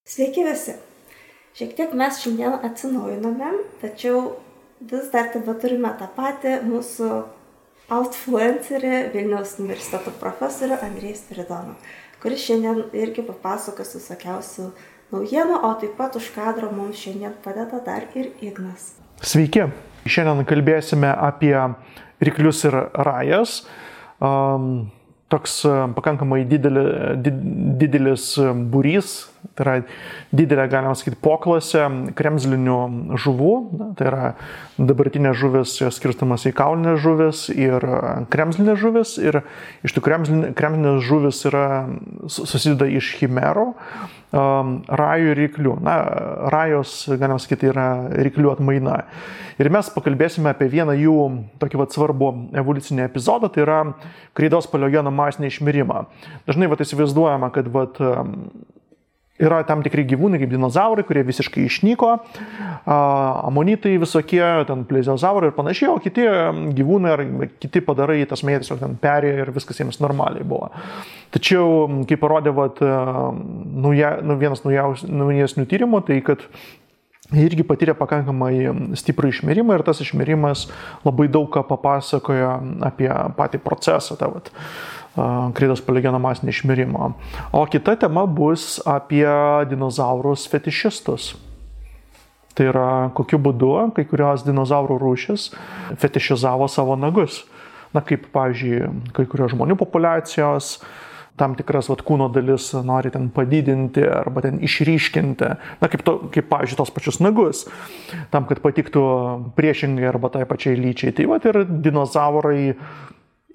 Sveiki visi. Šiek tiek mes šiandien atsinaujinome, tačiau vis dar turime tą patį mūsų outfluencerį Vilniaus universiteto profesorių Andrejų Spiridoną, kuris šiandien irgi papasakos visokiausių naujienų, o taip pat už kadro mums šiandien padeda dar ir Ignas. Sveiki. Šiandien kalbėsime apie ryklius ir rajas. Toks pakankamai didelis būrys, tai yra didelė, galima sakyti, poklasė kremzlinių žuvų, tai yra dabartinė žuvis skirstamas į kaulinės žuvis ir kremzlinės žuvis, ir iš tų kremzlinės žuvis susideda iš chimerų, rajų ir ryklių. Rajos, galima sakyti, yra ryklių atmaina. Ir mes pakalbėsime apie vieną jų tokį svarbų evoliucinį epizodą, tai yra kreidos paleogeno masinį išmirimą. Dažnai įsivaizduojama, kad yra tam tikri gyvūnai, kaip dinozaurai, kurie visiškai išnyko, amonitai visokie, ten plezioazaurai ir panašiai, o kiti gyvūnai ar kiti padarai, tas mėtis tiesiog ten perėjo ir viskas jiems normaliai buvo. Tačiau, kaip parodė vienas naujesnių tyrimų, tai kad irgi patyrė pakankamai stiprų išmirimą ir tas išmirimas labai daug ką papasakojo apie patį procesą, kreidos paleogeno masinį išmirimą. O kita tema bus apie dinozaurus fetišistus. Tai yra, kokiu būdu kai kurios dinozaurų rūšis fetišizavo savo nagus. Kaip, pavyzdžiui, kai kurios žmonių populiacijos tam tikras kūno dalis nori ten padidinti arba ten išryškinti, kaip pavyzdžiui, tos pačius nagus, tam, kad patiktų priešingai arba tai pačiai lyčiai. Tai ir dinozaurai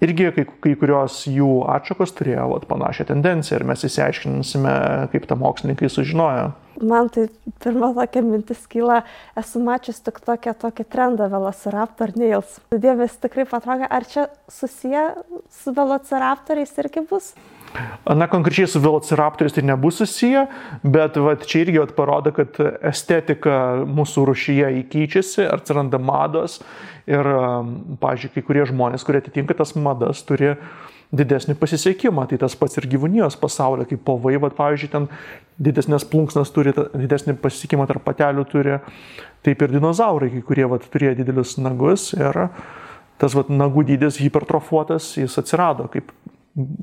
irgi kai kurios jų atšakos turėjo panašią tendenciją ir mes įsiaiškinsime, kaip tą mokslininkai sužinojo. Man tai pirma tokia mintis kyla, esu mačius tik tokį trendą Velociraptor Nails. Dėmesį tikrai patraukė, ar čia susiję su Velociraptoriais irgi bus? Konkrečiai su Velociraptoriais tai nebus susiję, bet čia irgi parodo, kad estetika mūsų rūšyje keičiasi, atsiranda mados ir, pavyzdžiui, kai kurie žmonės, kurie atitinka tas madas, turi didesnį pasisekimą. Tai tas pats ir gyvūnijos pasaulyje, kaip povai, pavyzdžiui, ten didesnės plunksnas turi, didesnį pasisekimą tarp patelių turi, taip ir dinozaurai, kai kurie turėjo didelius nagus ir tas nagų dydis hipertrofuotas, jis atsirado kaip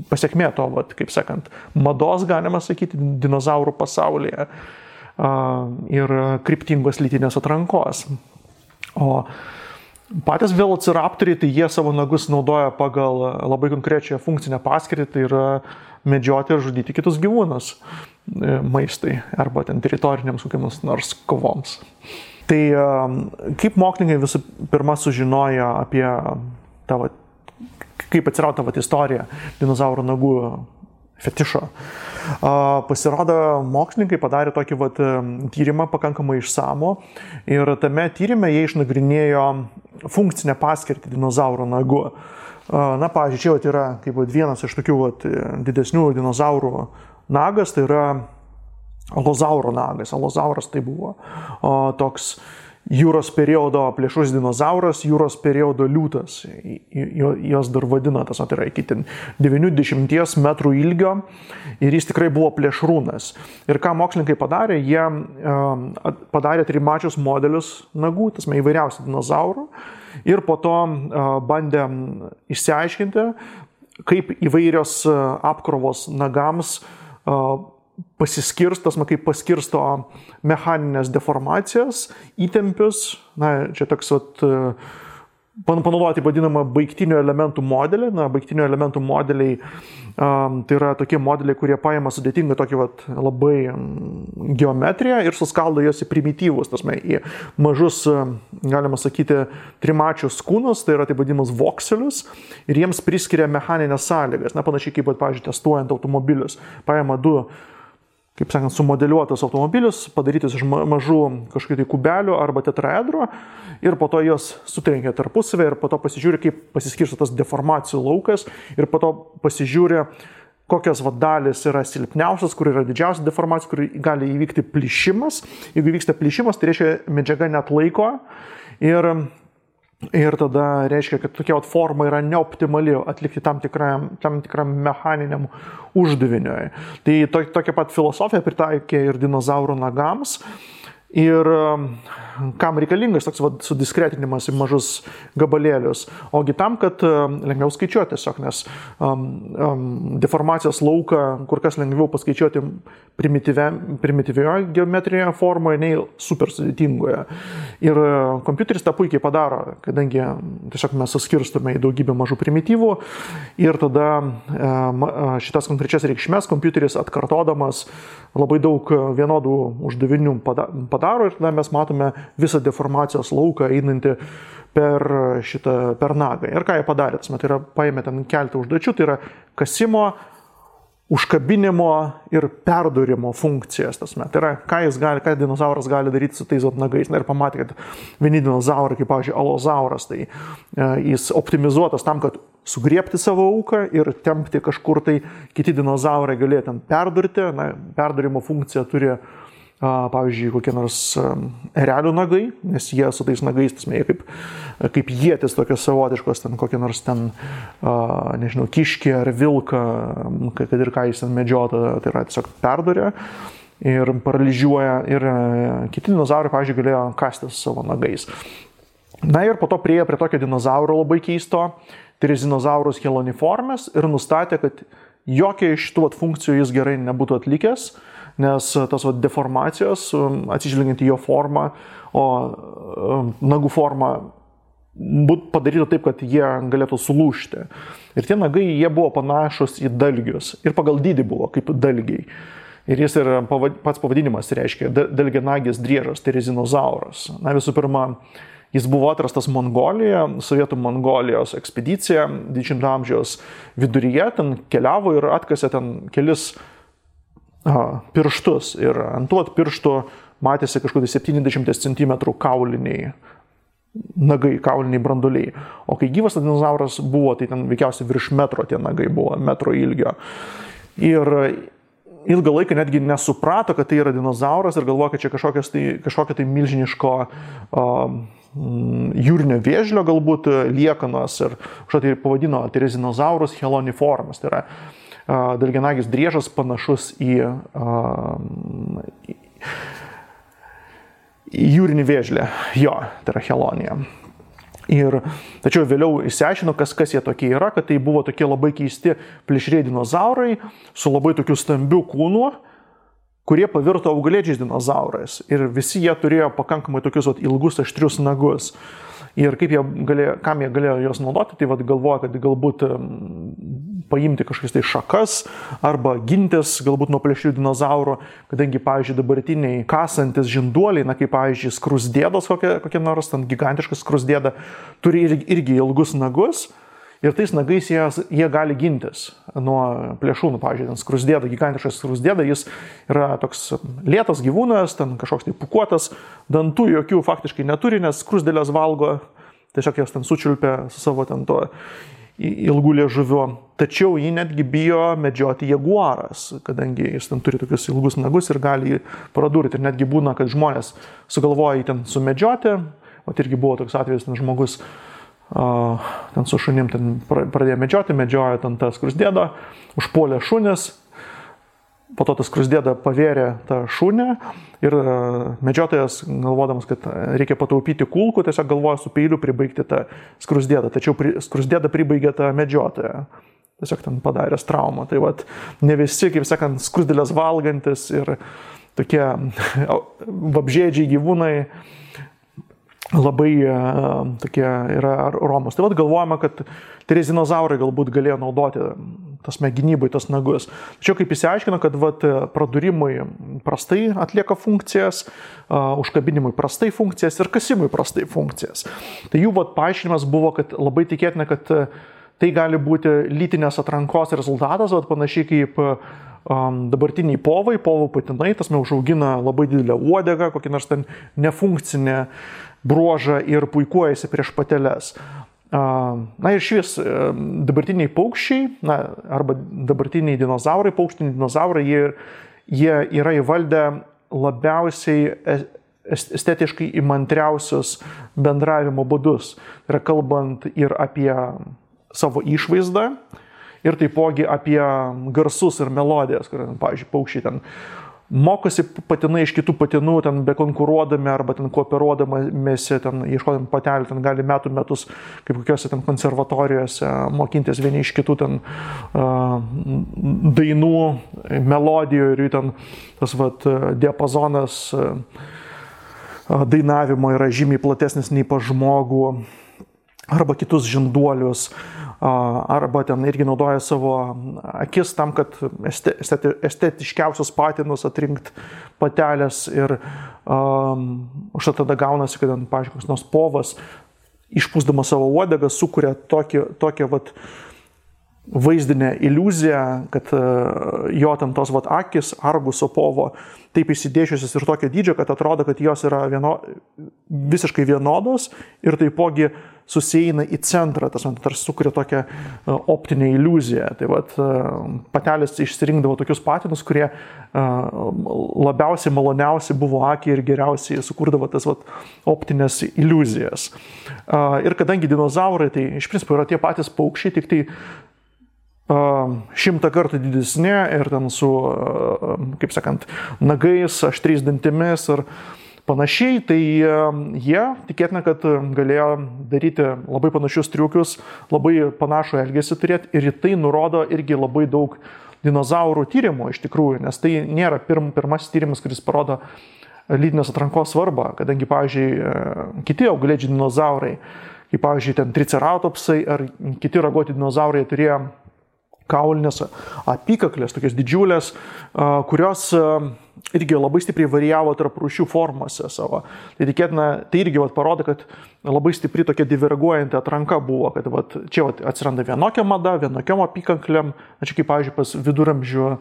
pasiekmė to, kaip sakant, mados, galima sakyti, dinozaurų pasaulyje ir kryptingos lytinės atrankos. O patys velociraptoriai, tai jie savo nagus naudoja pagal labai konkrečią funkcinę paskirtį, tai yra medžioti ir žudyti kitus gyvūnus maistui arba ten teritoriniams kokiams nors kovoms. Tai kaip mokslininkai visų pirma sužinojo apie kaip atsirado istorija dinozaurų nagų fetišo. Pasirodo, mokslininkai padarė tokį tyrimą pakankamai išsamų ir tame tyrime jie išnagrinėjo funkcinę paskirtį dinozaurų nagų. Pavyzdžiui, čia yra kaip vienas iš tokių didesnių dinozaurų nagas, tai yra alozauro nagas. Alozauras tai buvo toks jūros periodo plėšrus dinozauras, jūros periodo liūtas. Jos dar vadina, tai yra iki 90 metrų ilgio ir jis tikrai buvo plėšrūnas. Ir ką mokslininkai padarė, jie padarė trimačius modelius nagų, įvairiausių dinozaurų ir po to bandė išsiaiškinti, kaip įvairios apkrovos nagams kaip paskirsto mechaninės deformacijas, įtempius, čia toks panaudoti vadinamą baigtinių elementų modelį. Baigtinių elementų modeliai tai yra tokie modeliai, kurie paima sudėtingą tokį labai geometriją ir suskaldo jos į primityvus, į mažus, galima sakyti, trimačius kūnus, tai yra taip vadinamus vokselius, ir jiems priskiria mechaninės sąlygas, panašiai kaip, pavyzdžiui, testuojant automobilius. Paima du, kaip sakant, sumodeliuotus automobilius, padarytus iš mažų kažkokių tai kubelių arba tetraedro ir po to jos sutrenkia tarpusavę ir po to pasižiūri, kaip pasiskirsto tas deformacijų laukas ir po to pasižiūri, kokios dalis yra silpniausios, kur yra didžiausia deformacija, kur gali įvykti plyšimas. Jeigu vyksta plyšimas, tai reiškia medžiaga net laiko ir Ir tada reiškia, kad tokia forma yra neoptimali atlikti tam tikram mechaniniam uždaviniui. Tai tokia pat filosofija pritaikė ir dinozaurų nagams. Ir kam reikalingas toks sudiskretinimas į mažus gabalėlius? Ogi tam, kad lengviau skaičiuoti tiesiog, nes deformacijos lauką kur kas lengviau paskaičiuoti primityvioje geometrijoje formoje, nei super sudėtingoje. Ir kompiuteris tą puikiai padaro, kadangi tiesiog mes suskirstume į daugybę mažų primityvų ir tada šitas konkrečias reikšmes kompiuteris atkartodamas labai daug vienodų uždavinių padaro ir tada mes matome visą deformacijos lauką einantį per nagą. Ir ką jie padarė? Tai yra paėmė ten keletą užduočių, tai yra kasimo, užkabinimo ir perdūrimo funkcijas. Tai yra, ką dinozauras gali daryti su tais nagais. Ir pamatė, kad vieni dinozaurai, kaip pavyzdžiui alozauras, tai jis optimizuotas tam, kad sugriebti savo auką ir tempti kažkur, tai kiti dinozaurai galėjo ten perdurti. Perdurimo funkciją turi, pavyzdžiui, kokie nors erelių nagai, nes jie su tais nagais, jie kaip ietis tokios savotiškos, ten kokie nors ten, nežinau, kiškį ar vilką, kad ir ką jis ten medžiota, tai yra tiesiog perdurė ir paralyžiuoja. Ir kiti dinozaurai, pavyzdžiui, galėjo kastis savo nagais. Ir po to priejo prie tokio dinozauro labai keisto, Therizinosaurus heloniformes, ir nustatė, kad jokia iš šitų funkcijų jis gerai nebūtų atlikęs, nes tas deformacijos, atsižvelgiant į jo formą, o nagų forma padarytų taip, kad jie galėtų sulūžti. Ir tie nagai, jie buvo panašus į dalgius. Ir pagal dydį buvo kaip dalgiai. Ir jis ir pats pavadinimas reiškia dalgianagis driežas, Therizinosaurus. Visų pirma, jis buvo atrastas Mongolijoje, Sovietų Mongolijos ekspedicija 20 amžiaus viduryje, ten keliavo ir atkasė ten kelis pirštus. Ir ant tų pirštų matėsi kažkokie 70 cm kauliniai nagai, kauliniai branduoliai. O kai gyvas dinozauras buvo, tai ten veikiausiai virš metro tie nagai buvo, metro ilgio. Ir ilgą laiką netgi nesuprato, kad tai yra dinozauras ir galvoja, kad čia kažkokia tai milžiniško jūrinio vėžlio galbūt liekanos ir kažką tai pavadino Therizinosaurus heloniformes. Tai yra dalgianagis driežas panašus į jūrinį vėžlį. Jo, tai yra helonija. Tačiau vėliau išsiaiškino, kas jie tokie yra, kad tai buvo tokie labai keisti plėšrieji dinozaurai su labai tokiu stambiu kūnu, kurie pavirto augalėdžiais dinozaurais. Ir visi jie turėjo pakankamai tokius ilgus, aštrius nagus. Ir kam jie galėjo juos naudoti, tai galvoja, kad galbūt paimti kažkokias tai šakas arba gintis galbūt nuo plėšrių dinozaurų, kadangi, pavyzdžiui, dabartiniai kasantis žinduoliai, kaip, pavyzdžiui, skrusdėdos kokie nors, ten gigantiškas skrusdėda, turi irgi ilgus nagus. Ir tais nagais jie gali gintis nuo plėšrūnų. Pavyzdžiui, ten skrusdėda, gigantiškas skrusdėda, jis yra toks lėtas gyvūnas, ten kažkoks tai pūkuotas, dantų jokių faktiškai neturi, nes skrusdėlės valgo, tiesiog jas ten sučiulpia su savo ten to ilgų liežuviu. Tačiau jį netgi bijo medžioti jaguaras, kadangi jis ten turi tokius ilgus nagus ir gali jį pradurti. Ir netgi būna, kad žmonės sugalvoja jį ten sumedžioti. O irgi buvo toks atvejis, ten žmogus ten su šunim ten pradėjo medžiojo ten tą skrusdėdą, užpuolė šunis, po to tas skrusdėda pavėrė tą šunį ir medžiotojas, galvodamas, kad reikia pataupyti kulkų, tiesiog galvoja su peiliu pribaigti tą skrusdėdą, tačiau skrusdėda pribaigė tą medžiotoją. Tiesiog ten padaręs traumą. Tai ne visi, kaip sakant, skrusdėlės valgantis ir tokie vabžėdžiai gyvūnai labai tokie yra romos. Tai galvojama, kad Therizinosaurus galbūt galėjo naudoti gynybai tas nagus. Tačiau kaip išsiaiškino, kad pradurimui prastai atlieka funkcijas, užkabinimui prastai funkcijas ir kasimui prastai funkcijas. Tai jų paaiškinimas buvo, kad labai tikėtina, kad tai gali būti lytinės atrankos rezultatas, panašiai kaip dabartiniai povų patinai, užaugina labai didelę uodegą, kokį nors ten nefunkcinę bruožą ir puikuojasi prieš pateles. Ir šis dabartiniai paukščiai, arba dabartiniai dinozaurai, paukštiniai dinozaurai, jie yra įvaldę labiausiai estetiškai įmantriausius bendravimo būdus. Tai yra kalbant ir apie savo išvaizdą, ir taipogi apie garsus ir melodijas, kur, pavyzdžiui, paukščiai ten mokosi patinai iš kitų patinų, ten bekonkuruodami arba ten kooperuodamėsi, ten ieškodami patelių, ten gali metus, kaip kokiuose ten konservatorijose mokintis vieni iš kitų ten dainų, melodijų ir jų ten tas diapazonas dainavimo yra žymiai platesnis nei pas žmogų, arba kitus žinduolius, arba ten irgi naudoja savo akis tam, kad estetiškiausius patinus atrinkt patelės ir už tada gaunasi, kad, pavyzdžiui, koks nors povas išpūsdamas savo uodegą sukuria tokią vaizdinę iliuziją, kad jo ten tos akis Arguso povo taip įsidėšiusios ir tokio dydžio, kad atrodo, kad jos yra visiškai vienodos ir taipogi susieina į centrą, tarsi sukuria tokią optinę iliuziją. Tai patelės išsirinkdavo tokius patinus, kurie labiausiai maloniausiai buvo akiai ir geriausiai sukurdavo tas optinės iliuzijas. Ir kadangi dinozaurai, tai iš principo yra tie patys paukščiai, tik tai 100 kartų didesni ir ten su, kaip sakant, nagais, aštriais dantimis ir panašiai, tai jie tikėtina, kad galėjo daryti labai panašius triukius, labai panašų elgesį turėti ir tai nurodo irgi labai daug dinozaurų tyrimų iš tikrųjų, nes tai nėra pirmasis tyrimas, kuris parodo lytinės atrankos svarbą, kadangi, pavyzdžiui, kiti augalėdžiai dinozaurai, kaip, pavyzdžiui, ten triceratopsai ar kiti ragoti dinozaurai turėjo kaulinės apykaklės, tokias didžiulės, kurios irgi labai stipriai varijavo tarp rūšių formose savo. Tai tikėtina, tai irgi parodo, kad labai stipri tokia diverguojanti atranka buvo, kad čia atsiranda vienokia mada, vienokiom apykaklėm, čia kaip, pavyzdžiui, pas viduramžių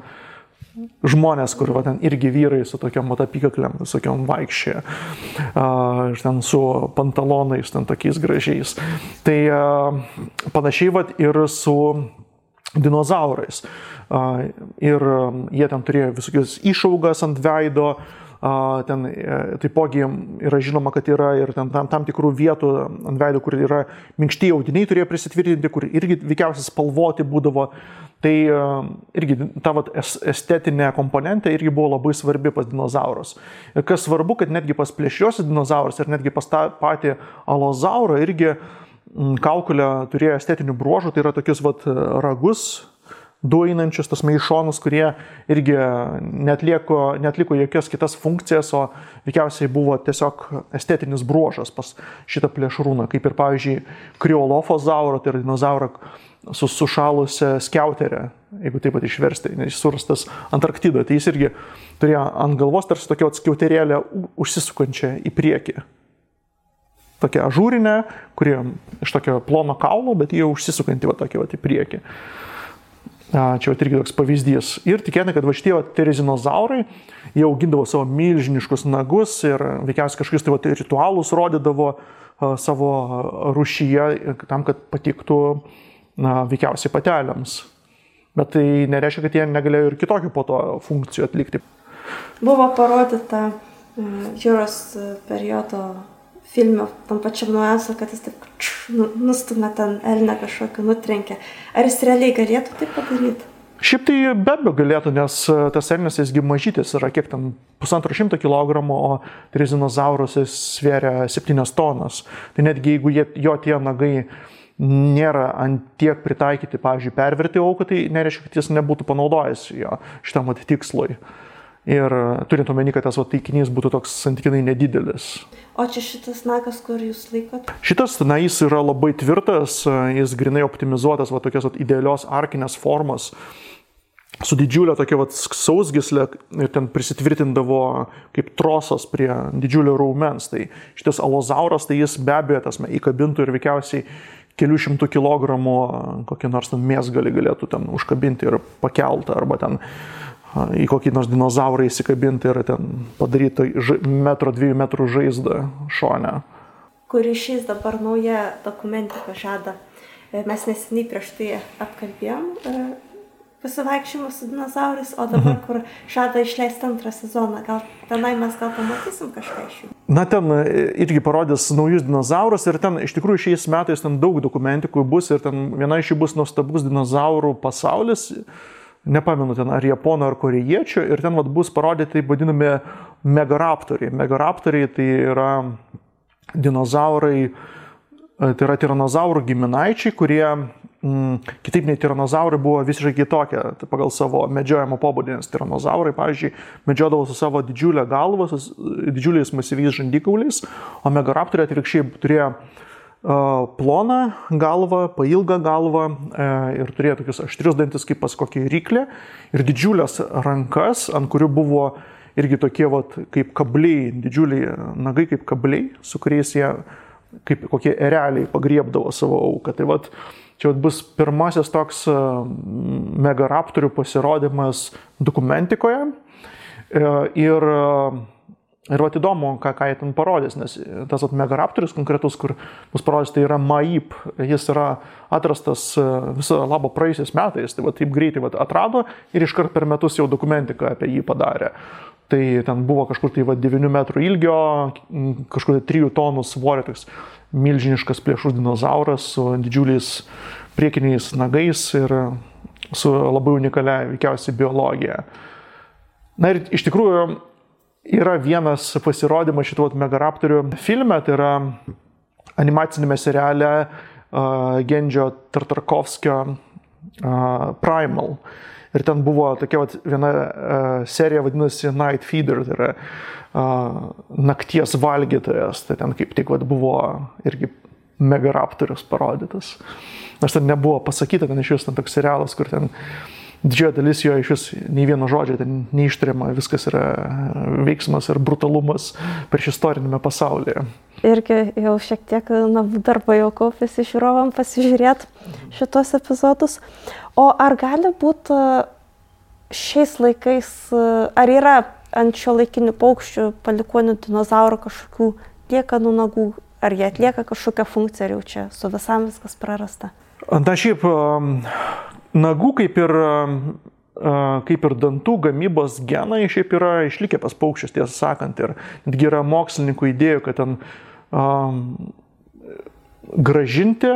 žmonės, kur ten irgi vyrai su tokiom apykaklėm, visokiom vaikščia, ten su pantalonais, ten tokiais gražiais. Tai panašiai ir su dinozaurais. Ir jie ten turėjo visokius išaugas ant veido, ten taipogi yra žinoma, kad yra ir tam tikrų vietų ant veido, kur yra minkšti audiniai turėjo prisitvirtinti, kur irgi veikiausiai spalvoti būdavo. Tai irgi ta estetinė komponentė irgi buvo labai svarbi pas dinozaurus. Ir kas svarbu, kad netgi pas plėšriuosius dinozaurus ir netgi pas tą patį alozaurą irgi kaukolė turėjo estetinių bruožų, tai yra tokius ragus, du einančius, tas maišonus, kurie irgi netliko jokias kitas funkcijas, o veikiausiai buvo tiesiog estetinis bruožas pas šitą plėšrūną, kaip ir, pavyzdžiui, kriolofozaurą, tai yra dinozaurą su sušalusią skiauterę, jeigu taip pat išversti, nes surastas Antarktidoje, tai jis irgi turėjo ant galvos tarsi tokia skiauterėlė užsisukančią į priekį. Tokia ažūrinė, kuri iš tokio plono kaulo, bet jie užsisukanti tokia į priekį. Čia irgi toks pavyzdys. Ir tikėtina, kad šitie terezinozaurai, jie augindavo savo milžiniškus nagus ir veikiausiai kažkokius ritualus rodydavo savo rūšyje tam, kad patiktų veikiausiai patelėms. Bet tai nereiškia, kad jie negalėjo ir kitokių po to funkcijų atlikti. Buvo parodyta jūros periodo filme, tam pačiam nuojansu, kad jis taip nustumė ten elnę kažkokį, nutrenkė. Ar jis realiai galėtų tai padaryti? Šiaip tai be abejo galėtų, nes tas elnias jisgi mažytis yra kiek ten 150 kg, o terizinozaurus jis svėria 7 tonas. Tai netgi jeigu jo tie nagai nėra ant tiek pritaikyti, pavyzdžiui, perverti auką, tai nereiškia, kad jis nebūtų panaudojęs jo šitam tikslui. Ir turint omeny, kad tas taikinys būtų toks santykinai nedidelis. O čia šitas nagas, kur jūs laikot? Šitas, jis yra labai tvirtas, jis grinai optimizuotas, tokios idealios arkinės formos, su didžiulė tokia sausgyslė ir ten prisitvirtindavo kaip trosas prie didžiulio raumens. Tai šitas alozauras, tai jis be abejo įkabintų ir veikiausiai kelių šimtų kilogramų kokį nors mėsgalį galėtų ten užkabinti ir pakeltą, arba ten į kokį nors dinozaurą įsikabinti ir ten padaryti 1-2 metrų žaizdą šone. Kur išeis dabar nauja dokumentika žada. Mes neseniai prieš tai apkalbėjom pasivaikščiojimus su dinozaurais, o dabar, kur žada išleisti 2 sezoną, gal tenai mes pamatysim kažką iš jų? Na, ten irgi parodys naujus dinozaurus ir ten iš tikrųjų šiais metais ten daug dokumentikų bus ir ten viena iš jų bus nuostabus dinozaurų pasaulis, nepamenu ten ar japonų ar korėjiečių, ir ten bus parodyti taip vadinami megaraptoriai. Megaraptoriai tai yra dinozaurai, tai yra tiranozaurų giminaičiai, kurie kitaip nei tiranozaurai buvo visiškai kitokie pagal savo medžiojimo pobūdį, nes tiranozaurai, pavyzdžiui, medžiodavo su savo didžiulę galvą, su didžiuliais masyviais žandikauliais, o megaraptoriai atvirkščiai turėjo ploną galvą, pailgą galvą ir turėjo tokius aštrius dantis kaip pas kokį ryklį ir didžiulės rankas, ant kurių buvo irgi tokie kaip kabliai, didžiuliai nagai kaip kabliai, su kuriais jie kaip kokie ereliai pagriebdavo savo auką. Tai čia bus pirmasis toks megaraptorių pasirodymas dokumentikoje ir įdomu, ką jie ten parodys, nes tas megaraptorius konkretus, kur bus parodys, tai yra Maip. Jis yra atrastas visą labą praėjusiais metais, tai taip greitai atrado ir iškart per metus jau dokumentiką apie jį padarė. Tai ten buvo kažkur 9 metrų ilgio, kažkur 3 tonų svorio, toks milžiniškas plėšrus dinozauras su didžiuliais priekiniais nagais ir su labai unikalia veikiausiai biologija. Na ir iš tikrųjų yra vienas pasirodymas šitų megaraptorių filme, tai yra animacinėme seriale Gendžio Tartakovskio Primal. Ir ten buvo tokia viena serija vadinasi Night Feeder, tai yra nakties valgytojas. Tai ten kaip tik buvo irgi megaraptorius parodytas. Nors ten nebuvo pasakyta, ten iš vis ten toks serialas, kur ten didžioji dalis jo iš vis nei vieno žodžio ten neištariama, viskas yra veiksmas ir brutalumas prieš istorinėme pasaulyje. Irgi jau šiek tiek namų darbo jau kaupėsi žiūrovam pasižiūrėti šitos epizodus. O ar gali būti šiais laikais, ar yra ant šio laikinių paukščių palikonių dinozaurų kažkokių liekanų nagų, ar jie atlieka kažkokią funkciją, ar jau čia su visam viskas prarasta? Na šiaip nagų kaip ir dantų gamybos genai šiaip yra išlikę pas paukščius, tiesą sakant, ir netgi yra mokslininkų idėjų, kad ten gražinti,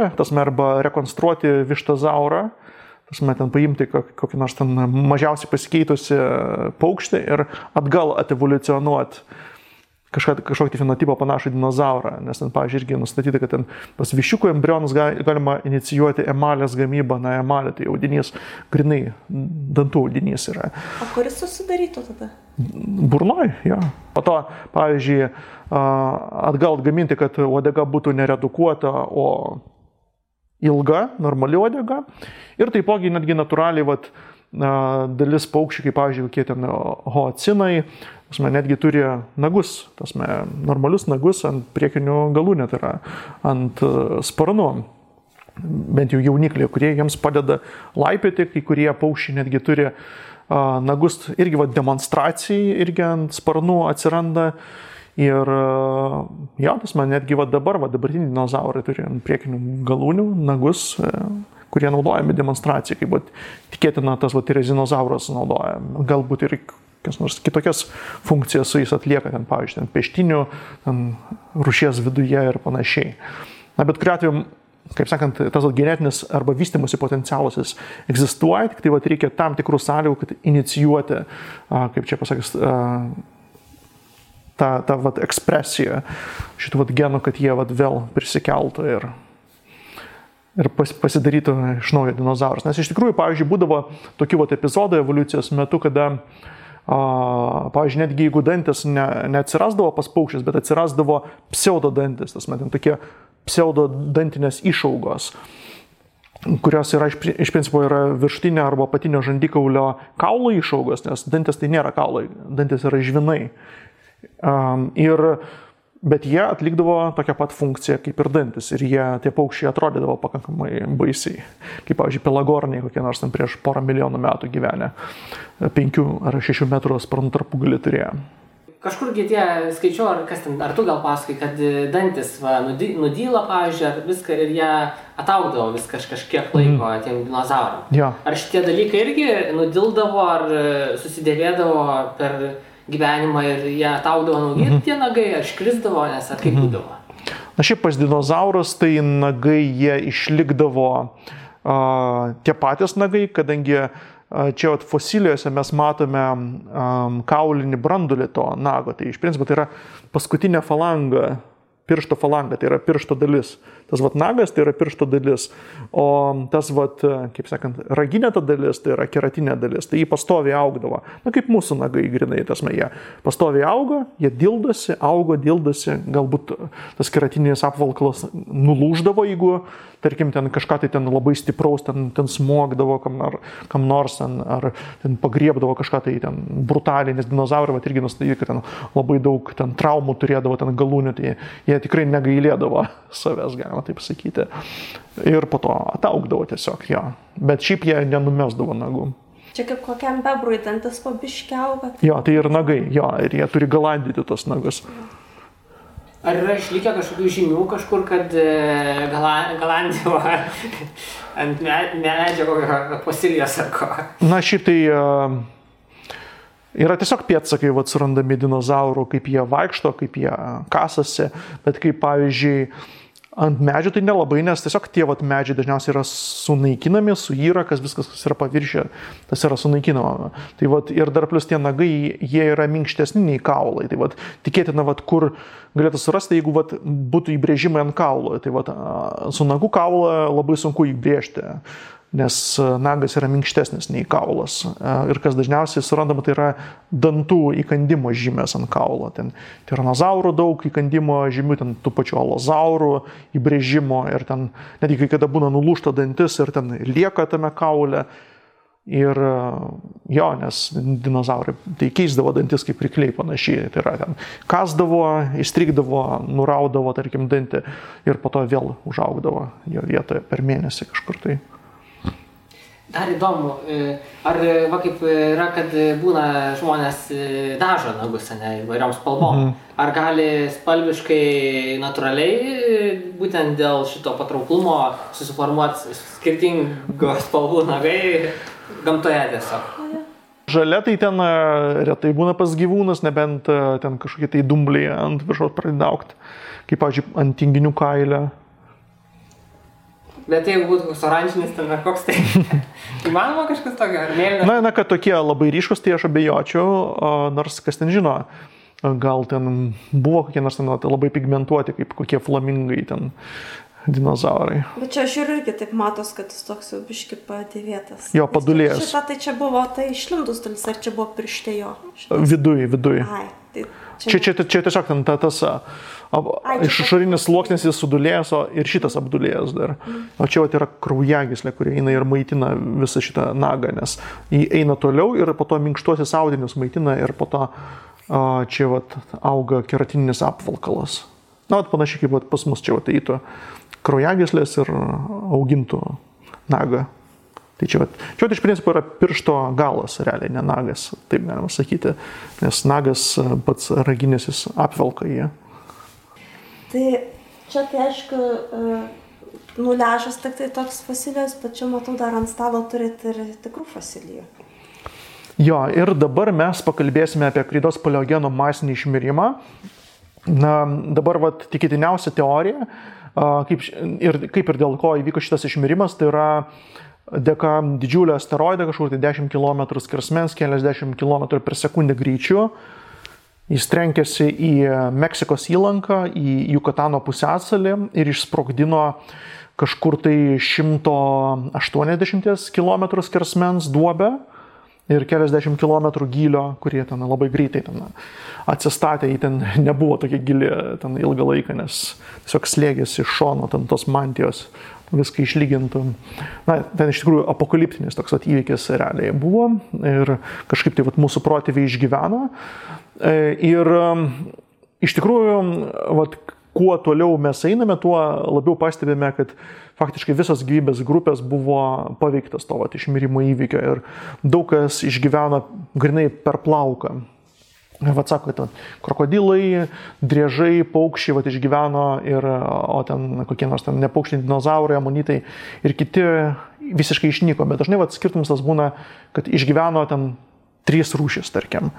arba rekonstruoti vištazaurą, ten paimti kokį nors ten mažiausiai pasikeitusi paukštį ir atgal atevoliucionuoti kažkokį fenotipą panašų dinozaurą, nes ten, pavyzdžiui, irgi nustatyta, kad ten pas viščiukų embrionus galima inicijuoti emalės gamybą, na emalė, tai audinys, grinai dantų audinys yra. O kuris susidarytų tada? Burnoj, jo. Po to, pavyzdžiui, atgal atgaminti, kad uodega būtų neredukuota, o ilga, normali uodega. Ir taipogi netgi natūraliai dalis paukščių, kaip pavyzdžiui, kokie ten hoacinai, netgi turi nagus, normalius nagus ant priekinių galūnė, tai yra ant sparnų. Bent jau jaunikliai, kurie jiems padeda laipioti, kai kurie paukščiai netgi turi nagus, irgi demonstracijai, irgi ant sparnų atsiranda. Ir jo, netgi dabartiniai dinozaurai turi ant priekinių galūnių nagus, kurie naudojami demonstracijai, kaip tikėtina tas tirezinozauras naudoja. Galbūt ir nors kitokias funkcijas su jais atlieka, ten, pavyzdžiui, peštinių, rūšies viduje ir panašiai. Na, bet kuriuo atveju, kaip sakant, tas genetinis arba vystymosi potencialas jis egzistuoja, tik tai reikia tam tikrų sąlygų, kad inicijuoti, kaip čia pasakys, tą ekspresiją šitų genų, kad jie vėl prisikeltų ir pasidarytų iš naujo dinozaurus. Nes iš tikrųjų, pavyzdžiui, būdavo tokių epizodų evoliucijos metu, kada, pavyzdžiui, netgi jeigu dantis neatsirasdavo pas paukščius, bet atsirasdavo pseudodantis, tokie pseudodantinės išaugos, kurios yra iš principo yra viršutinio arba apatinio žandikaulio kaulo išaugos, nes dantis tai nėra kaulai, dantis yra žvinai. Bet jie atlikdavo tokią pat funkciją kaip ir dantis ir tie paukščiai atrodydavo pakankamai baisiai. Kaip, pavyzdžiui, pelagorniai, kokie nors ten prieš 1 milijonų metų gyvenę, 5 ar 6 metrų sparnų tarpugalį turėjo. kažkurgi tie skaičiau, ar kas ten, ar tu gal pasakai, kad dantis nudyla, pavyzdžiui, ar viską ir jie ataugdavo vis kažkiek laiko tiem dinozauram. Ja. Ar šitie dalykai irgi nudildavo, ar susidėvėdavo per gyvenimą ir jie ataugdavo nauji tie nagai, ar iškrisdavo, nes ar kaip būdavo? Na šiaip pas dinozaurus tai nagai jie išlikdavo tie patys nagai, kadangi čia fosilijose mes matome kaulinį brandulį to nago. Tai iš principo tai yra paskutinė falanga, piršto falanga, tai yra piršto dalis. Tas nagas tai yra piršto dalis, o tas, kaip sakant, raginė ta dalis, tai yra keratinė dalis, tai jį pastoviai augdavo. Na, kaip mūsų nagai grinai, jie pastoviai augo, jie dildosi, galbūt tas keratinis apvalkalas nulūždavo, jeigu, tarkim, ten kažką tai ten labai stipraus, ten smogdavo kam nors, ar ten pagriebdavo kažką tai ten brutaliai, nes dinozaurai irgi nustatyti, kad ten labai daug ten traumų turėdavo, ten galūnių, tai jie tikrai negailėdavo savęs, galima taip sakyti. Ir po to ataugdavo tiesiog, jo. Bet šiaip jie nenumesdavo nagų. Čia kaip kokiam bebrui dantis po biškį auga. Jo, tai ir nagai, jo, ir jie turi galandyti tos nagus. Ar yra išlikę kažkokių žinių kažkur, kad galandavo ant medžio kokio fosilijos ar ko? Na, šiaip tai yra tiesiog pėdsakai surandami dinozaurų, kaip jie vaikšto, kaip jie kasasi, bet kaip pavyzdžiui ant medžių tai nelabai, nes tiesiog tie medžiai dažniausiai yra sunaikinami, suyra, viskas, kas yra paviršė, tas yra sunaikinama. Tai ir dar plus tie nagai, jie yra minkštesni nei kaulai. Tai tikėtina, kur galėtų surasti, jeigu būtų įbrėžimai ant kaulo. Tai su nagų kaulą labai sunku įbrėžti, nes nagas yra minkštesnis nei kaulas. Ir kas dažniausiai surandama, tai yra dantų įkandimo žymės ant kaulo. Ten tiranozaurų daug įkandimo žymių, ten tų pačių alozaurų įbrėžimo ir ten netgi kai kada būna nulūžta dantis ir ten lieka tame kaule. Ir jo, nes dinozaurai tai keisdavo dantis kaip rykliai panašiai. Tai yra ten kasdavo, įstrigdavo, nuraudavo, tarkim, dantį ir po to vėl užaugdavo jo vietoje per mėnesį kažkur tai. Dar įdomu, ar kaip yra, kad būna žmonės dažo nagus, įvairiom spalvom. Ar gali spalviškai natūraliai, būtent dėl šito patrauklumo, susiformuoti skirtingos spalvų nagai gamtoje tiesiog? Žalia tai ten retai būna pas gyvūnus, nebent ten kažkokie tai dumbliai ant viršaus pradeda augti, kaip, pavyzdžiui, ant tinginių kailio. Bet jeigu būtų koks oranžinis, ten ar koks tai įmanoma kažkas tokio, ar mėlynas? Na, kad tokie labai ryškus, tai aš abejočiau, nors kas ten žino, gal ten buvo kokie nors ten labai pigmentuoti, kaip kokie flamingai ten dinozaurai. Bet čia aš irgi taip matos, kad jis toks jau biški padėvėtas. Jo, padulėjęs. Šitą tai čia buvo, tai išlindus dalis, ar čia buvo pirštė jo? Viduj. Ai, tai čia tiesiog ten tas išorinis sluoksnis jis sudulėjęs, ir šitas apdulėjęs dar. O čia yra kraujagyslė, kurie eina ir maitina visą šitą nagą, nes jį eina toliau ir po to minkštuosius audinius maitina ir po to čia auga keratininis apvalkalas. Na, panašiai kaip pas mus čia eitų kraujagyslės ir augintų nagą. Tai čia iš principo yra piršto galas, realiai, ne nagas, taip galima sakyti, nes nagas pats raginis jis apvelka jį. Tai čia tai aišku, nuležas tik tai toks fosilijos, bet čia matau dar ant stalo turite ir tikrų fosilijų. Jo, ir dabar mes pakalbėsime apie kreidos paleogeno masinį išmirimą. Na, dabar tikėtiniausia teorija, kaip ir dėl ko įvyko šitas išmirimas, tai yra dėka didžiulio asteroido, kažkur tai 10 km skersmens, keliasdešimt km per sekundę greičiu. Jis trenkėsi į Meksikos įlanką, į Jukatano pusiasalį ir išsprogdino kažkur tai 180 km skersmens duobę ir keliasdešimt kilometrų gylio, kurie ten labai greitai ten atsistatė, jį ten nebuvo tokia gili ten ilgą laiką, nes tiesiog slėgėsi iš šono ten tos mantijos, viską išlygintų. Na, ten iš tikrųjų apokaliptinis toks įvykis realiai buvo ir kažkaip tai mūsų protėviai išgyveno. Ir iš tikrųjų, kuo toliau mes einame, tuo labiau pastebime, kad faktiškai visas gyvybės grupės buvo paveiktas to išmirimo įvykio ir daug kas išgyveno grinai per plauką. Vat sako, kad krokodilai, driežai, paukščiai vat išgyveno, o ten kokie nors ten nepaukščiai, dinozaurai, amonitai ir kiti visiškai išnyko. Bet dažnai vat skirtumas tas būna, kad išgyveno ten 3 rūšis, tarkim.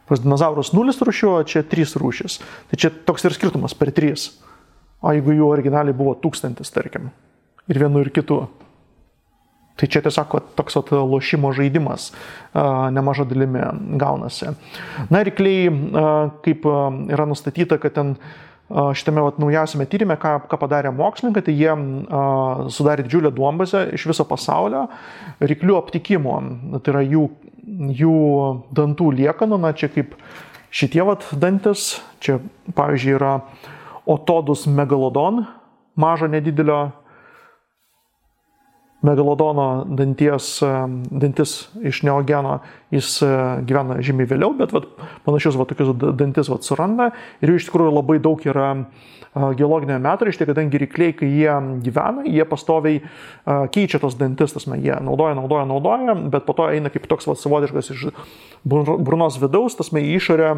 Pas dinozaurus 0 rūšių, o čia 3 rūšis. Tai čia toks ir skirtumas per 3. O jeigu jų originaliai buvo 1000, tarkim, ir vienu ir kitu. Tai čia tiesiog toks lošimo žaidimas nemaža dalimi gaunasi. Na, rykliai, kaip yra nustatyta, kad ten šitame naujausiame tyrime, ką padarė mokslininkai, tai jie sudarė didžiulę duombazę iš viso pasaulio ryklių aptikimo. Tai yra jų dantų liekanų, na čia kaip šitie dantis, čia pavyzdžiui yra Otodus megalodon, mažo nedidelio megalodono dantis iš neogeno, jis gyvena žymiai vėliau, bet panašius tokius dantis suranda ir jų iš tikrųjų labai daug yra geologinėje metrašte, kadangi rykliai, kai jie gyvena, jie pastoviai keičia tos dantis, jie naudoja, bet po to eina kaip toks savotiškas iš burnos vidaus, į išorę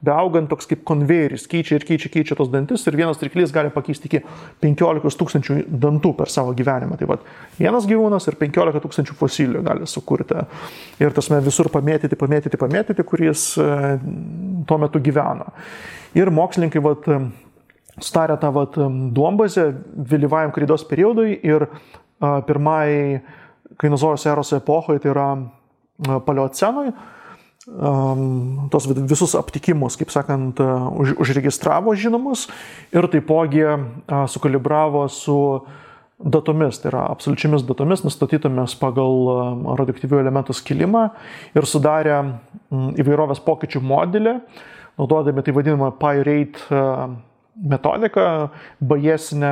beaugant toks kaip konvejeris, keičia tos dantis ir vienas ryklys gali pakeisti iki 15 000 dantų per savo gyvenimą. Tai vienas gyvūnas ir 15 000 fosilijų gali sukurti ir visur pamėtyti, kuris tuo metu gyveno. Ir mokslininkai sutarė tą duombazę vėlyvajam kreidos periodui ir pirmai kainozojos eros epochai, tai yra paleocenui, tos visus aptikimus, kaip sakant, užregistravo žinomus ir taipogi sukalibravo su datomis, tai yra absoliučiamis datomis, nustatytomis pagal radioaktyvių elementų skilimą ir sudarė įvairovės pokyčių modelį, naudodami tai vadinamą Pi-rate metodiką, bajesinę,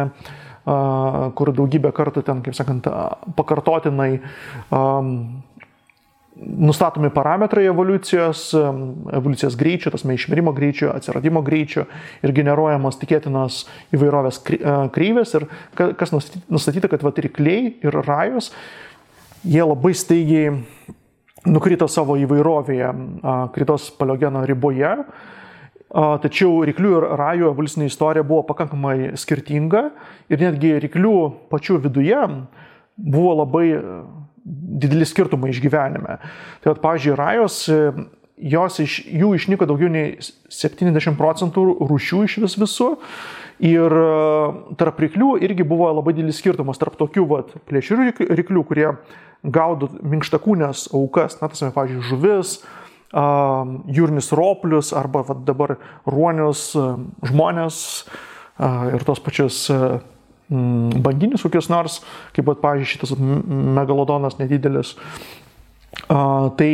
kur daugybę kartų ten, kaip sakant, pakartotinai nustatomi parametrai evoliucijos greičio, išmirimo greičio, atsiradimo greičio ir generuojamos tikėtinos įvairovės kreivės. Ir kas nustatyta, kad rykliai ir rajus, jie labai staigiai nukrito savo įvairovėje kritos paleogeno riboje. Tačiau ryklių ir rajų evoliucinė istorija buvo pakankamai skirtinga ir netgi ryklių pačių viduje buvo labai dideli skirtumai išgyvenime. Tai pavyzdžiui, rajos, jų išnyko daugiau nei 70% rūšių iš visų ir tarp ryklių irgi buvo labai didelis skirtumas tarp tokių plėšrių ryklių, kurie gaudo minkštakūnės aukas, pavyzdžiui, žuvis, jūrinius roplius arba dabar ruonius, žmonės ir tos pačius banginius kokius nors, kaip pavyzdžiui šitas megalodonas nedidelis. Tai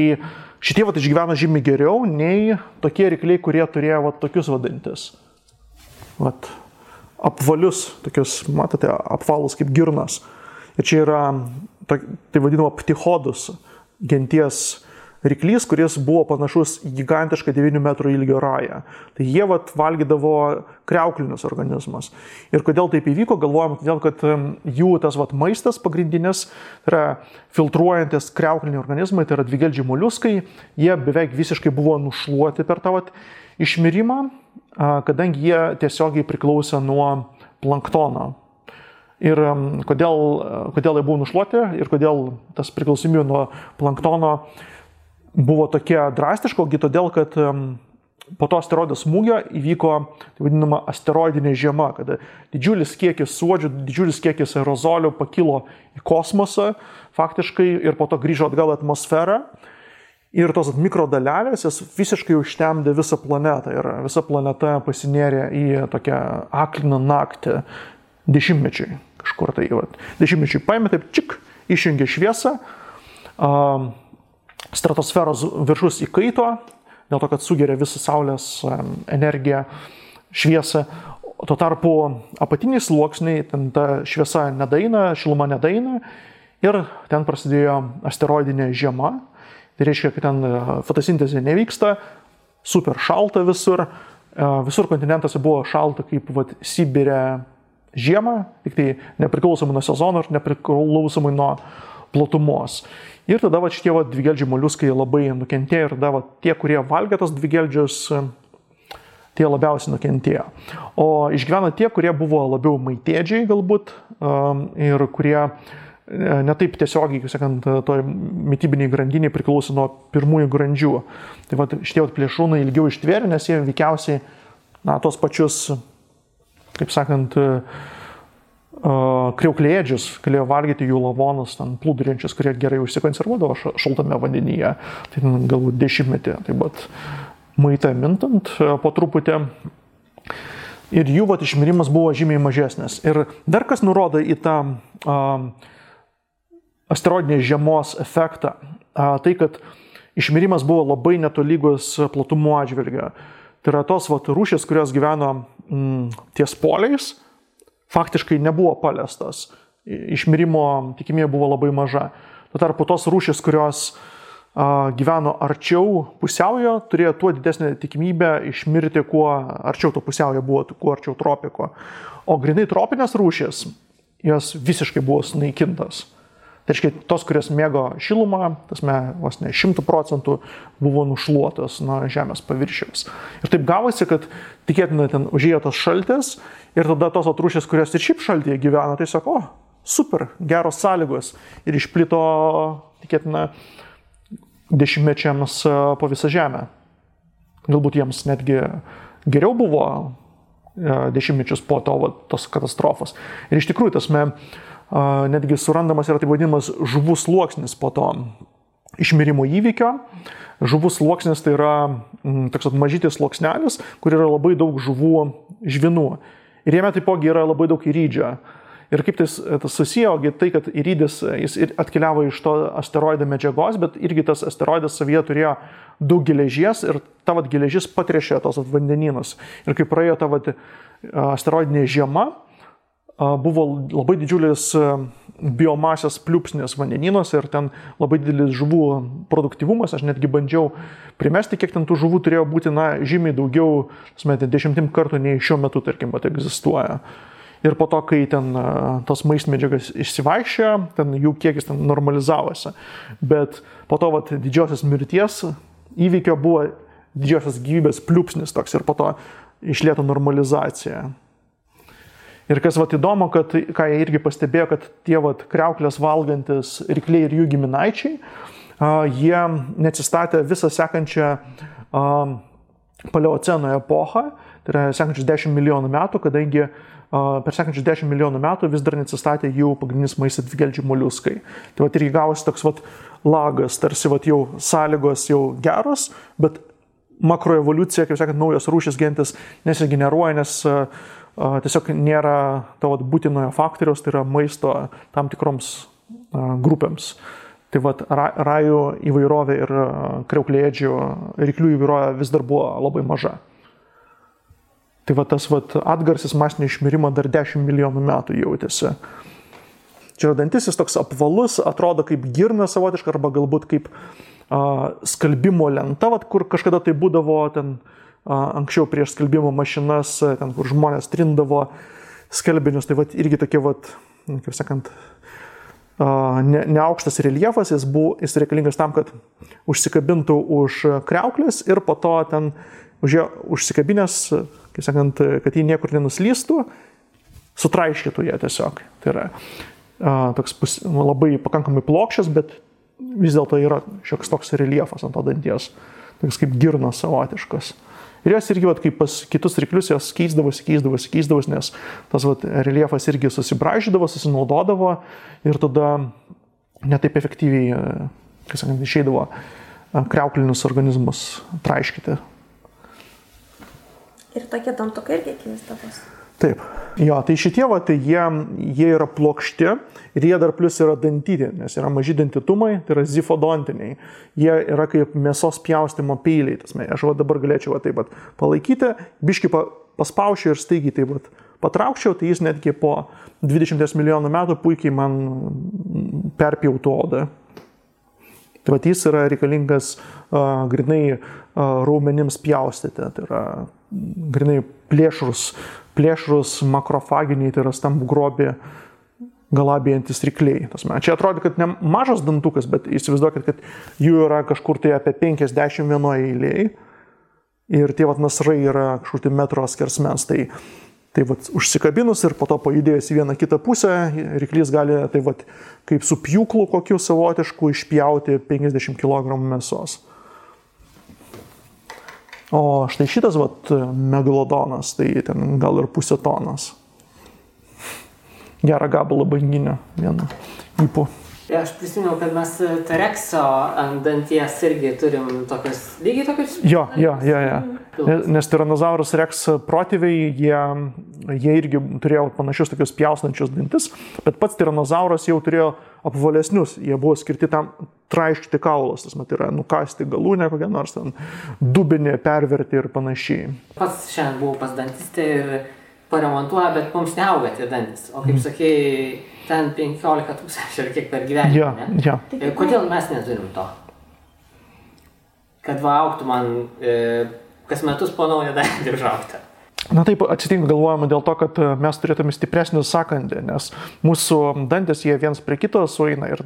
šitie išgyveno žymiai geriau nei tokie rykliai, kurie turėjo tokius dantis. Apvalius, tokius, matote, apvalus kaip girnas. Ir čia yra, tai vadinama ptichodus genties ryklys, kuris buvo panašus į gigantišką 9 metrų ilgio rają. Tai jie valgydavo kriauklinius organizmus. Ir kodėl taip įvyko, galvojam, todėl, kad jų tas maistas pagrindinis, tai yra filtruojantis kriaukliniai organizmai, tai yra dvigeldžiai moliuskai, jie beveik visiškai buvo nušluoti per tą išmirimą, kadangi jie tiesiogiai priklausė nuo planktono. Ir kodėl jie buvo nušluoti ir kodėl tas priklausomybė nuo planktono buvo tokia drastiška, todėl, kad po to asteroido smūgio įvyko, tai vadinama, asteroidinė žiema, kada didžiulis kiekis suodžių, didžiulis kiekis aerozolių pakilo į kosmosą faktiškai ir po to grįžo atgal į atmosferą. Ir tos mikrodalelės visiškai užtemdė visą planetą ir visa planeta pasinėrė į tokią akliną naktį dešimtmečiui. Kažkur tai, dešimtmečiui paėmė, taip čik, išjungė šviesą, stratosferos viršus įkaito, dėl to, kad sugeria visą Saulės energiją, šviesą. Tuo tarpu apatiniai sluoksniai, ten ta šviesa nedaina, šiluma nedaina ir ten prasidėjo asteroidinė žiema. Tai reiškia, kad ten fotosintezė nevyksta, super šalta visur. Visur kontinentuose buvo šalta kaip Sibire žiemą, tik tai nepriklausomai nuo sezono ir nepriklausomai nuo platumos. Ir tada šitie dvigeldžiai moliuskai labai nukentėjo ir tada tie, kurie valgė tos dvigeldžius, tie labiausiai nukentėjo. O išgyveno tie, kurie buvo labiau maitėdžiai galbūt ir kurie netaip tiesiogiai, kaip sakant, toj mitybiniai grandiniai priklauso nuo pirmųjų grandžių. Tai šitie plėšrūnai ilgiau ištvėrė, nes jie veikiausiai tos pačius, kaip sakant, kriauklėdžius galėjo valgyti jų lavonus, plūduriančius, kurie gerai užsikonservuodavo šaltame vandenyje. Tai galbūt 10-metį, taip maitą mintant po truputį. Ir jų išmirimas buvo žymiai mažesnis. Ir dar kas nurodo į tą asteroidinės žiemos efektą, tai kad išmirimas buvo labai netolygus platumo atžvilgiu. Tai yra tos rūšės, kurios gyveno ties poliais, faktiškai nebuvo paliestas. Išmirimo tikimybė buvo labai maža. Tuo tarpu tos rūšys, kurios gyveno arčiau pusiaujo, turėjo tuo didesnę tikimybę išmirti, kuo arčiau to pusiaujo buvo, kuo arčiau tropiko. O grinai tropinės rūšys, jos visiškai buvo sunaikintas. Tai reiškia, tos, kurios mėgo šilumą, vos ne 100% buvo nušluotos nuo žemės paviršiaus. Ir taip gavosi, kad tikėtina ten užėjo tas šaltis ir tada tos rūšys, kurios ir šiaip šaltyje gyveno, tai sako, super, geros sąlygos ir išplito, tikėtina, 10-mečiams po visą žemę. Galbūt jiems netgi geriau buvo 10-mečius po tos katastrofos. Ir iš tikrųjų, netgi surandamas yra taip vadinamas žuvų sluoksnis po to išmirimo įvykio. Žuvų sluoksnis tai yra toks mažytis sluoksnelis, kur yra labai daug žuvų žvinų. Ir jame taipogi yra labai daug įrydžio. Ir kaip tas susiję, tai kad įrydis jis atkeliavo iš to asteroido medžiagos, bet irgi tas asteroidas savyje turėjo daug geležies ir ta geležis patrešė tos vandenynus. Ir kai praėjo ta asteroidinė žiema, buvo labai didžiulis biomasės pliūpsnis vandenynuose ir ten labai didelis žuvų produktyvumas. Aš netgi bandžiau primesti, kiek ten tų žuvų turėjo būti, žymiai daugiau, 10 kartų nei šiuo metu, tarkim, egzistuoja. Ir po to, kai ten tos maistmedžiagas išsivaikščiojo, ten jų kiekis ten normalizavosi. Bet po to didžiosios mirties įvykio buvo didžiosios gyvybės pliūpsnis toks ir po to išlėto normalizacija. Ir kas įdomu, kad, ką jie irgi pastebėjo, kad tie kriauklės valgantis rykliai ir jų giminaičiai, jie neatsistatė visą sekančią paleoceno epochą, tai yra sekančius 10 milijonų metų, kadangi per sekančius 10 milijonų metų vis dar neatsistatė jų pagrindinis maistas dvigeldžiai moliuskai. Tai irgi gavosi toks lagas, tarsi jau sąlygos jau geros, bet makroevoliucija, kaip sakant, naujos rūšys gentis nesigeneruoja, nes tiesiog nėra to būtinojo faktoriaus, tai yra maisto tam tikroms grupėms. Tai rajų įvairovė ir kriauklėdžių ryklių įvairovė vis dar buvo labai maža. Tai tas atgarsis masinio išmirimo dar 10 milijonų metų jautėsi. Čia dantis jis toks apvalus, atrodo kaip girna savotiška arba galbūt kaip skalbimo lenta, kur kažkada tai būdavo ten anksčiau prieš skalbimo mašinas, ten kur žmonės trindavo skalbinius, tai irgi tokie, kaip sakant, neaukštas reljefas, jis reikalingas tam, kad užsikabintų už kriauklės ir po to ten užsikabinęs, kaip sakant, kad jį niekur nenuslystų, sutraiškytų ją tiesiog. Tai yra toks labai pakankamai plokščias, bet vis dėlto yra šioks toks reljefas ant to danties, toks kaip girnas savotiškas. Ir jos irgi, kaip pas kitus ryklius, jos keisdavosi, nes tas reljefas irgi susibraižydavo, susinaudodavo ir tada netaip efektyviai, kaip sakant, išeidavo kriauklinius organizmus traiškyti. Ir tokie dantukai irgi keisdavosi. Taip. Jo, tai šitie, tai jie yra plokšti ir jie dar plus yra dantyti, nes yra maži dantitumai, tai yra zifodontiniai. Jie yra kaip mėsos pjaustimo peiliai. Aš dabar galėčiau taip palaikyti, biškį paspaušiu ir staigiai taip patraukčiau, tai jis netgi po 20 milijonų metų puikiai man perpjautų odą. Tai jis yra reikalingas grinai raumenims pjaustyti, tai yra grinai plėšrus makrofaginiai, tai yra stambų grobį galabėjantis rykliai. Čia atrodo, kad ne mažas dantukas, bet įsivaizduokit, kad jų yra kažkur tai apie 50 vienoje eilėje ir tie nasrai yra kažkur tai metro skersmens. Tai užsikabinus ir po to pajudėjus į vieną kitą pusę, ryklys gali kaip su pjūklu kokiu savotišku išpjauti 50 kg mėsos. O štai šitas megalodonas, tai ten gal ir pusė tonos. Gerą gabalą banginio vienu ypu. Aš prisimenu, kad mes T-rexo ant danties irgi turim lygiai tokius. Jo. Nes Tyrannosaurus rex protėviai, jie irgi turėjo panašius tokius pjausnančius dantis, bet pats Tyrannosauras jau turėjo apvalesnius, jie buvo skirti tam traiškyti kaulas, tai yra nukasti galūnę kokią nors, ten dubinį perverti ir panašiai. Pats šiandien buvau pas dantistę ir paremontuoja, bet mums neauga tie dantis. O kaip sakei, ten 15 000 ir kiek per gyvenimą, ne? Ja. Kodėl mes neturim to? Kad augtų man kas metus po naują dantį užaugti. Na taip atsitinka, galvojama dėl to, kad mes turėtume stipresnį sąkandį, nes mūsų dantis jie viens prie kito sueina ir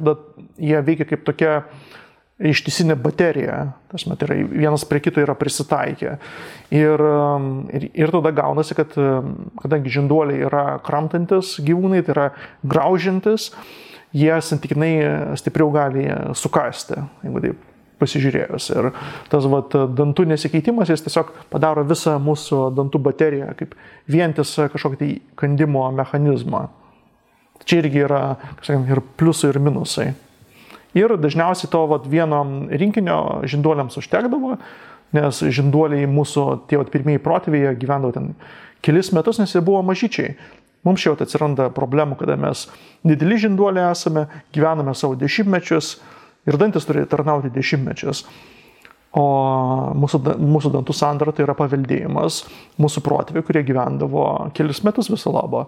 jie veikia kaip tokia ištisinė baterija, tai yra vienas prie kito yra prisitaikę. Ir tada gaunasi, kad kadangi žinduoliai yra kramtantis gyvūnai, tai yra graužiantis, jie santykinai stipriau gali sukasti, jeigu taip pasižiūrėjus. Ir tas dantų nesikeitimas, jis tiesiog padaro visą mūsų dantų bateriją kaip vientisą kažkokį tai kandimo mechanizmą. Čia irgi yra, ir pliusai, ir minusai. Ir dažniausiai to vieno rinkinio žinduoliams užtekdavo, nes žinduoliai mūsų tie pirmieji protėviai gyvendavo ten kelis metus, nes jie buvo mažyčiai. Mums čia atsiranda problemų, kada mes dideli žinduoliai esame, gyvename savo dešimtmečius ir dantis turi tarnauti dešimtmečius. O mūsų dantų sandara tai yra paveldėjimas mūsų protėviai, kurie gyvendavo kelis metus viso labo.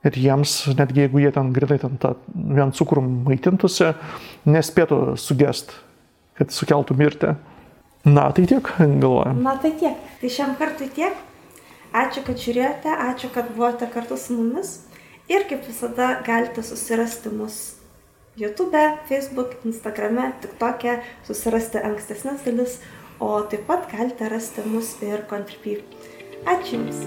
Ir jiems, netgi jeigu jie ten grinai vien cukrum maitintųsi, nespėtų sugest, kad sukeltų mirtį. Na, tai tiek, galvojam. Na, tai tiek. Tai šiam kartui tiek. Ačiū, kad žiūrėjote, ačiū, kad buvote kartu su mumis. Ir kaip visada galite susirasti mus YouTube, Facebook, Instagrame, TikTok'e, susirasti ankstesnes dalis, o taip pat galite rasti mus ir Contribui. Ačiū Jums.